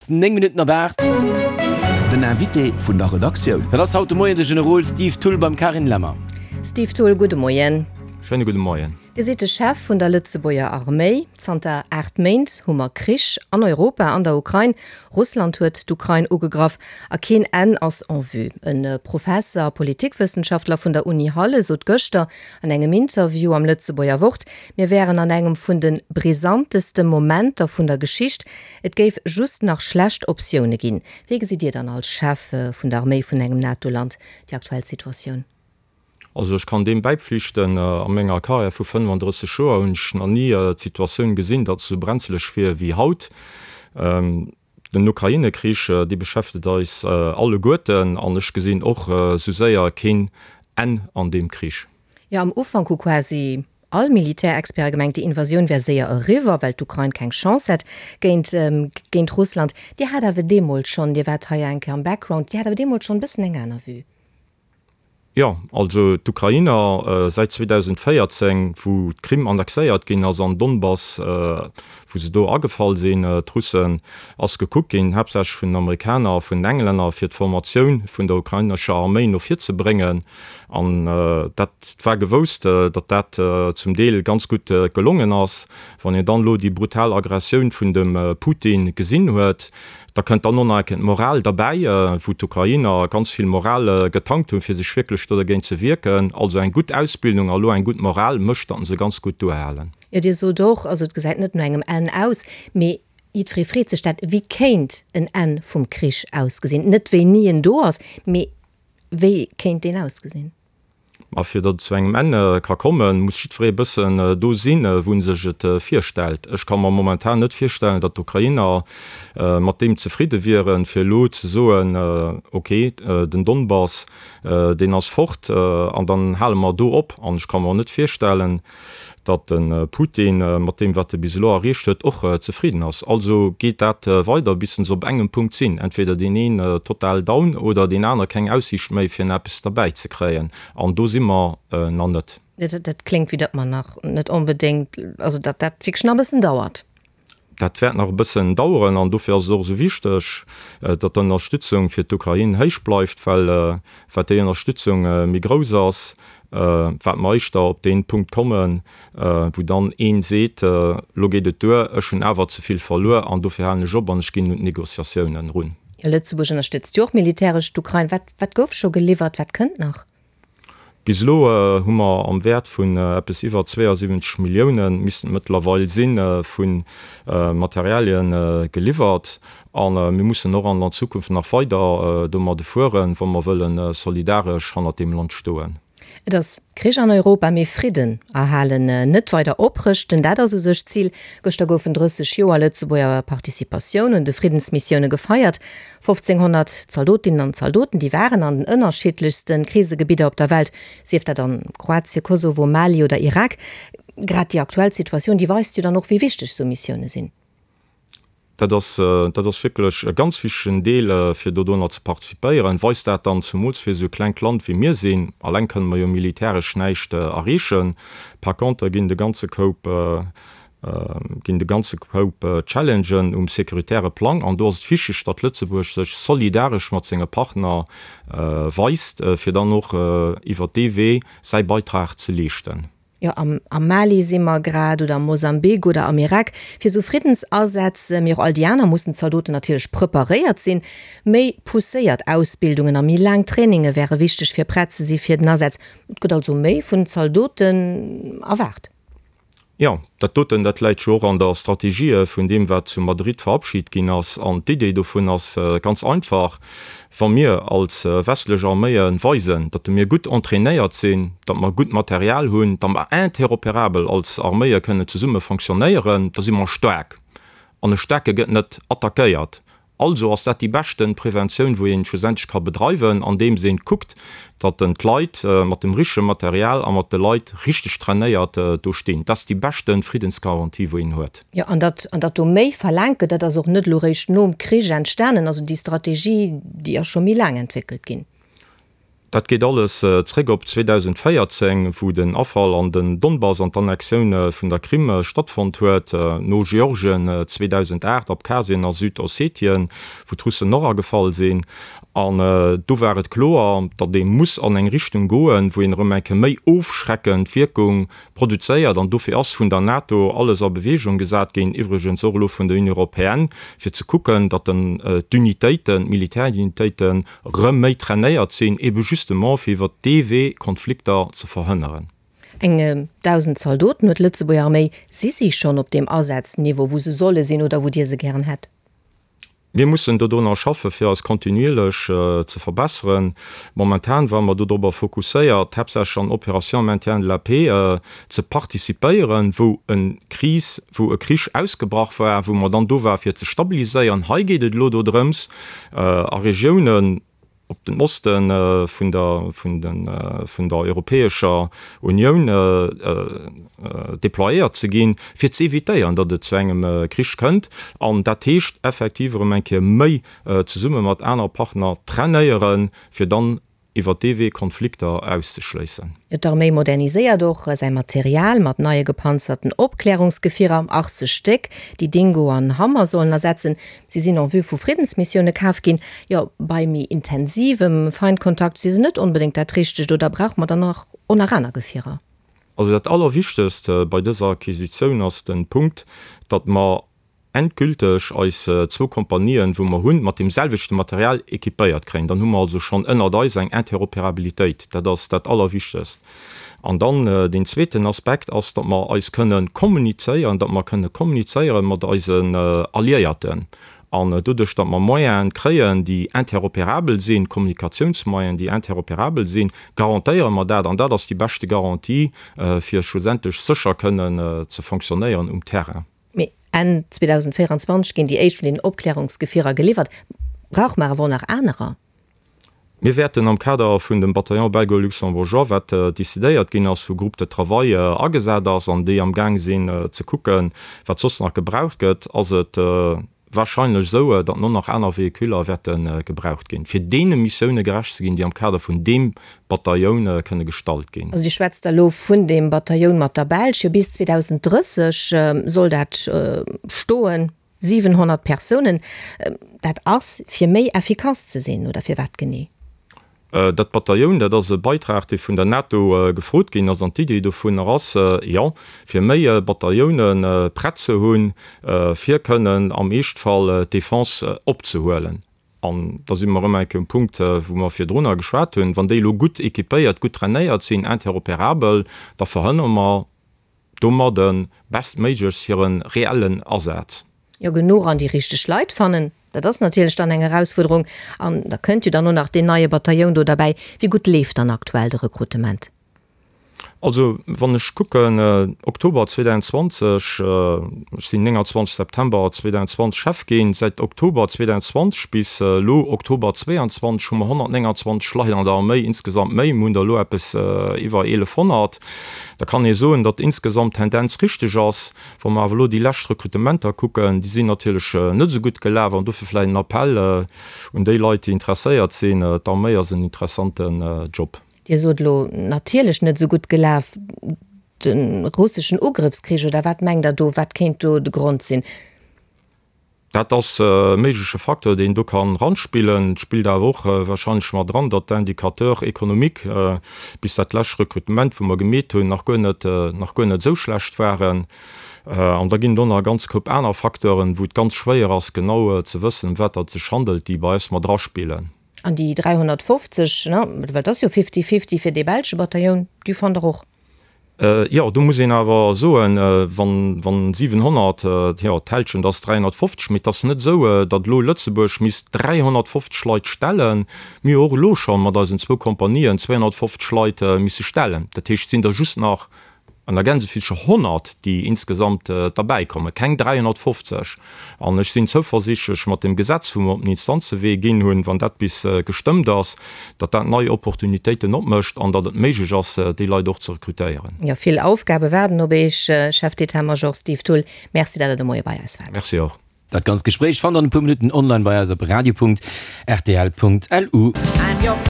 9 Minutten op 8. Den Invité vun der Redaktioun. Dat ass haut de Moien de Generol Steve Thull beim Carine Lemmer. Steve Thull, gudde Moien. Schéine gudde Moien. Dir sidd de Chef vun der Lëtzebuerger Arméi. Zanter 8 Méint hu mer Krich an Europa, an der Ukrain. Russland huet d'Ukrain ugegraff a keen Enn ass en vue. E Professer a Politikwëssenschaftler vun der Uni Halle sot gëschter an engem Interview am Lëtzebuerger Wort, mir wären an engem vun de brisanteste Momenter vun der Geschicht. Et géif just nach schlecht Optioune ginn. Wéi gesitt Dir dann als Chef vun der Arméi vun engem NATO-Land déi aktuell Situatioun? Also ech kann deem bäipflichten. A menger Karriär vu 35 Joer hunn ech nach ni d'Situatioun gesinn, datt et esou brenzeleg wier wéi haut. Den Ukraine-Krich, dee beschäftegt eis alleguerten an ech gesinn och esou séier keen Enn an deem Krich. Jo, am Ufank hu quasi all Militärexperte gemengt, déi Invasioun wär séier eriwwer, well d'Ukrain keng Chance hätt géint géint Russland. Dir hat awer deemools schonn, Dir waart hei eng Kéier am Background, Dir hat awer deemools schonn e bëssen eng aner Vue. Jo, also d'Ukrainer säit 2014, wou d'Krim annexéiert ginn ass an Donbass, wou se do agefall sinn, d'Russen, ass gekuckt ginn, haaptsächlech vun den Amerikaner a vun den Englänner, fir d'Formatioun vun der ukrainescher Arméi no vir ze bréngen. An dat war gewousst, datt dat zum Deel ganz gutt gelongen ass. Wann een dann elo déi brutal Aggressioun vun dem Putin gesinn huet, Da kënnt dann och nach eng Kéier d'Moral derbäi, wou d'Ukrainer ganz vill Moral getankt hunn, fir sech wierklech do dergéint ze wierken. Also eng gutt Ausbildung a elo eng gutt Moral mécht, datt se ganz gutt duerhalen. Jo, Dir sot och, also et gesäit net no engem Enn aus, mee jiddweree freet sech dat, wéi kéint en Enn vum Krich ausgesinn? Net wéini en do ass, mee wéi kéint deen ausgesinn? A fir datt et zu engem Enn ka kommen, muss jiddweree e bëssen do sinn, wou en sech et virstellt. Ech ka mer momentan net virstellen, datt d'Ukrainer mat deem zefridde wieren, fir elo ze soen, ok, den Donbass, deen ass fort an dann hale mer do op. An ech ka mer och net virstellen, datt de Putin mat deem, wat e bis elo erreecht huet, och zefridden ass. Also geet dat weider, bis se op engem Punkt sinn, entweder deen een total down oder deen aner keng Aussiicht méi, fir nach eppes derbäi ze kréien. An do si mer nach net. Dat kléngt, wéi datt mer nach net onbedéngt, also datt dat wierklech nach e bëssen dauert. Dat wäert nach e bëssen daueren an dofir ass et och esou wichteg, datt d'Ënnerstützung fir d'Ukrain héich bleift, well wat déi Ënnerstützung méi grouss ass, wat mer éischter op dee Punkt kommen, wou dann ee seet, elo geet et duer, ech hunn awer ze vill verluer an dofir halen ech op an ech ginn un d'Negociatiounen erun. Jo, Lëtzebuerg ënnerstëtzt jo och militäresch d'Ukrain. Wat, wat gouf scho geliwwert, wat kënnt nach? Bis elo hu mer am Wäert vun eppes iwwer 72 Milliounen, missten et mëttlerweil sinn, vu Materialien geliwwert. A mir mussen och an der Zukunft nach weider domadde fueren, wa mer wëlle solidaresch hannert deem Land stoen. Et ass Krich an Europa, mee Fridden erhalen, net weider oprëschten, dat ass u sech d'Zil. Gëschter goufen 30 Joer Lëtzebuerger Participatioun un de Friddensmissioune gefeiert. 1500 Zaldotinnen an Zaldoten, déi waren an den ënnerschiddlechste Krisegebidder op der Welt, sief dat an Kroatien, Kosovo, Mali oder Irak. Grad déi aktuell Situatioun, déi weist jo dann och, wéi wichteg esou Missioune sinn. Dat ass, dat ass wierklech e ganz wichtegen Deel, fir dodonner ze participéieren. Weist dat dann, zumools fir esou e klengt Land wéi mir sinn, alleng kënne mer jo militäresch näischt erreechen, par contre ginn de ganze Koup, ginn de ganze Koup Challengen um sécuritaire Plang. An do ass et wichteg, datt Lëtzebuerg sech solidaresch mat senge Partner weist, fir dann och iwwert dee Wee säi Beitrag ze leeschten. Jo, am Mali si mer grad, oder am Mosambik oder am Irak. Fir esou Friddensasätz, mee och all déi aner, mussen d'Zaldoten natierlech preparéiert sinn. Méi pousséiert Ausbildungen a méi laang Traininge wäre wichteg, fir prett ze si fir den Asaz. Et gëtt also méi vun Zaldoten erwaart. Jo, dat doten, dat läit jo och an der Strategie vun deem, wat zu Madrid verabschit ginn ass. An d'Idee dovun ass ganz einfach, Wa mir als westlech Arméie weisen, datt mir gutt entrainéiert sinn, datt mer gutt Material hunn, datt mer interoperabel als Arméie kënnen zesumme fonctionnéieren, da si mer staark. An e Staarke gëtt net attackéiert. Also ass dat déi beschten Preventioun wou een schlussendlech ka bedreiwen, andeems een kuckt, datt en d'Leit mat dem richtege Material a mat de Leit richteg trainéiert do stinn. Dat ass déi beschten Friddensgarantie wou een huet. Jo, an datt, an datt do méi verlaangt gëtt, dat ass och net elo réischt nom Krich entstanen. Also déi Strategie, déi ass scho méi laang entwéckelt ginn. Dat geet alles zréck op 2014, wou den Afall an den Donbass an d'Annexioun vun der Krim stattfonnt huet, no Georgien 2008, Abkhazien a Südossetien, wou d'Russen och agefall sinn. An do war et kloer, datt ee muss an eng Richtung goen, wou een erëm eng Kéier méi ofschreckend Wierkung produzéiert. An dofir ass vun der NATO alles a Bewegung gesat ginn, iwwregens och elo vun der Union européenne, fir ze kucken, datt d'Unitéiten, d'Militärunitéiten erëm méi trainéiert sinn, ebe justement fir iwwert dee Wee Konflikter ze verhënneren. Eng 1.000 Zaldoten huet d'Lëtzebuerger Arméi. Si si schonn op deem Asazniveau, wou se solle sinn oder wou Dir se gären hätt? Mir mussen dodrunner schaffe fir eis kontinuierlech ze verbesseren. Momentan ware mer dodrobber fokusséiert, haaptsächlech an Opérations maintien de la paix ze participéieren, wou e Kris, wou e Krich ausgebrach war, wou mer dann do ware fir ze stabiliséieren. Hei geet et elo dodrëms, a Regiounen, op den Oste vun der, vun den, vun der Europäescher Unioun déployéiert ze ginn, fir ze évitéieren, datt et zu engem Krich kënnt. An dat heescht effektiv erëm eng Kéier méi zesumme mat anere Partner trainéieren, fir dann iwwert dee Wee Konflikter auszeschléissen. D'Arméi moderniséiert och säi Material mat neie gepanzerten Opklärungsgefierer, 80 Stéck, déi Dingo an Hammer sollen ersetzen. Si sinn en vue vu Friddensmissioune kaf ginn. Jo, bei méi intensivem Feindkontakt si se net onbedéngt dat Richtegt, oder brauche mer dann nach och nach aner Gefierer? Also dat Allerwichtegst bei dëser Acquisitioun ass de Punkt, datt mer endgülteg eis zwou Kompanien, wou mer hunn, mat deem selwechte Material équipéiert kréien. Dann hu mer also schonn ënnert eis eng Interopérabilitéit. Dat ass dat Allerwichtegst. An dann deen zweeten Aspekt ass, datt mer eis kënne kommunizéieren, datt mer kënne kommunizéiere mat eisen Alliéierten. An doduerch, datt mer Moyene kréien, déi interopérabel sinn, Kommunikatiounsmoyenen, déi interopérabel sinn, garantéiere mer dat. An dat ass déi beschte Garantie, fir schlussendlech sécher kënnen ze fonctionnéieren um Terrain. Mee Enn 2024 ginn déi éischt vun den Opklärungsgefierer geliwwert. Brauche mer awer och nach anerer? Mir wäerten am Kader vun dem Bataillon belgo-luxembourgeois, wat décidéiert ginn ass, wou Groupe de travail agesat ass an déi am Gaang sinn ze kucken, wat soss nach gebraucht gëtt, ass et wahrscheinlech esou, datt no nach aner Véhiculer wäerte gebraucht ginn, fir deene Missioune gerecht ze ginn, déi am Kader vun deem Batailloun kënne gestallt ginn. Also Dir schwätzt da elo vun deem Batailloun mat der Belsch. Jo, bis 2030 soll dat stoen, 700 Persounen. Dat ass, fir méi effikass ze sinn, oder firwat genee? Dat Batailloun, dat ass e Beitrag, dee vun der NATO gefrot ginn ass. An d'Idee dovunner ass, jo, fir méi Batailloune prett ze hunn, fir kënnen am Eeschtfall d'Defense opzehuelen. An da si mer erëm eng Kéier um Punkt, wou mer virdrunner geschwat hunn, Wann déi elo gutt équipéiert, gutt trainéiert sinn, interopérabel, da verhënnere mer domadde bestméiglechst hire reellen Asaz. Jo, genuch an déi richteg Leit fannen, dat ass natierlech dann eng Erausfuerderung. An da kënnt jo dann och nach deen neie Batailloun do derbäi. Wéi gutt leeft dann aktuell de Rekrutement? Also wann ech kucken, Oktober 2020, ech sinn 29 September 2020 Chef ginn, säit Oktober 2020 bis elo Oktober 2022 hu mer 129 Leit an der Arméi insgesamt méi, mir hunn der elo eppes iwwer 1.100. Da kann ee soen, datt insgesamt d'Tendenz richteg ass. Wa mer awer elo déi lescht Rekrutementer kucken, déi sinn natierlech net esou gutt gelaf an dofir vläicht en Appell un déi Leit, déi interesséiert sinn, D'Arméi ass en interessanten Job. Dir sot elo, natierlech net esou gutt gelaf, de russeschen Ugrëffskrich, oder wat mengt Der do, wat kéint do de Grond sinn? Dat ass e méigleche Facteur, deen do kann ranspillen. Et spillt awer och wahrscheinlech mat eran, datt d'Indicateurs économiques bis dat lescht Rekrutement, wou mer gemeet hunn, nach guer net, nach guer net esou schlecht waren. An da ginn et och nach e ganz Koup aner Facteuren, wou et ganz schwéier ass, genau ze wëssen, ëm wat datt et sech handelt, déi bei eis mat eraspillen. An déi 350, ne, well et ass jo fifty-fifty fir dee belsche Batailloun, déi fannt Der och? Jo, do muss een awer soen, wann 700, jo, d'Hälschent ass 350, mee et ass net esou, datt elo Lëtzebuerg misst 350 Leit stellen. Mir hu och elo scho mat eisen zwou Kompanien 250 Leit misse stellen. Dat heescht, et sinn der just nach an der Gänsefillche 100, déi insgesamt derbäikommen, keng 350. An ech sinn zouversiichtlech mat deem Gesetz, wou mer op den Instanzewee ginn hunn, wann dat bis gestëmmt ass, datt dat nei Opportunitéiten opmécht an datt et méiglech ass, déi Leit och ze rekrutéieren. Jo, vill Aufgabe waarden op Iech, Chef d'État-Major Steve Thull. Merci, datt Der de Moie bei eis waart. Merci och. Dat ganzt Gespréich fannt der an e puer Minutten online bei eis op radio.rtl.lu.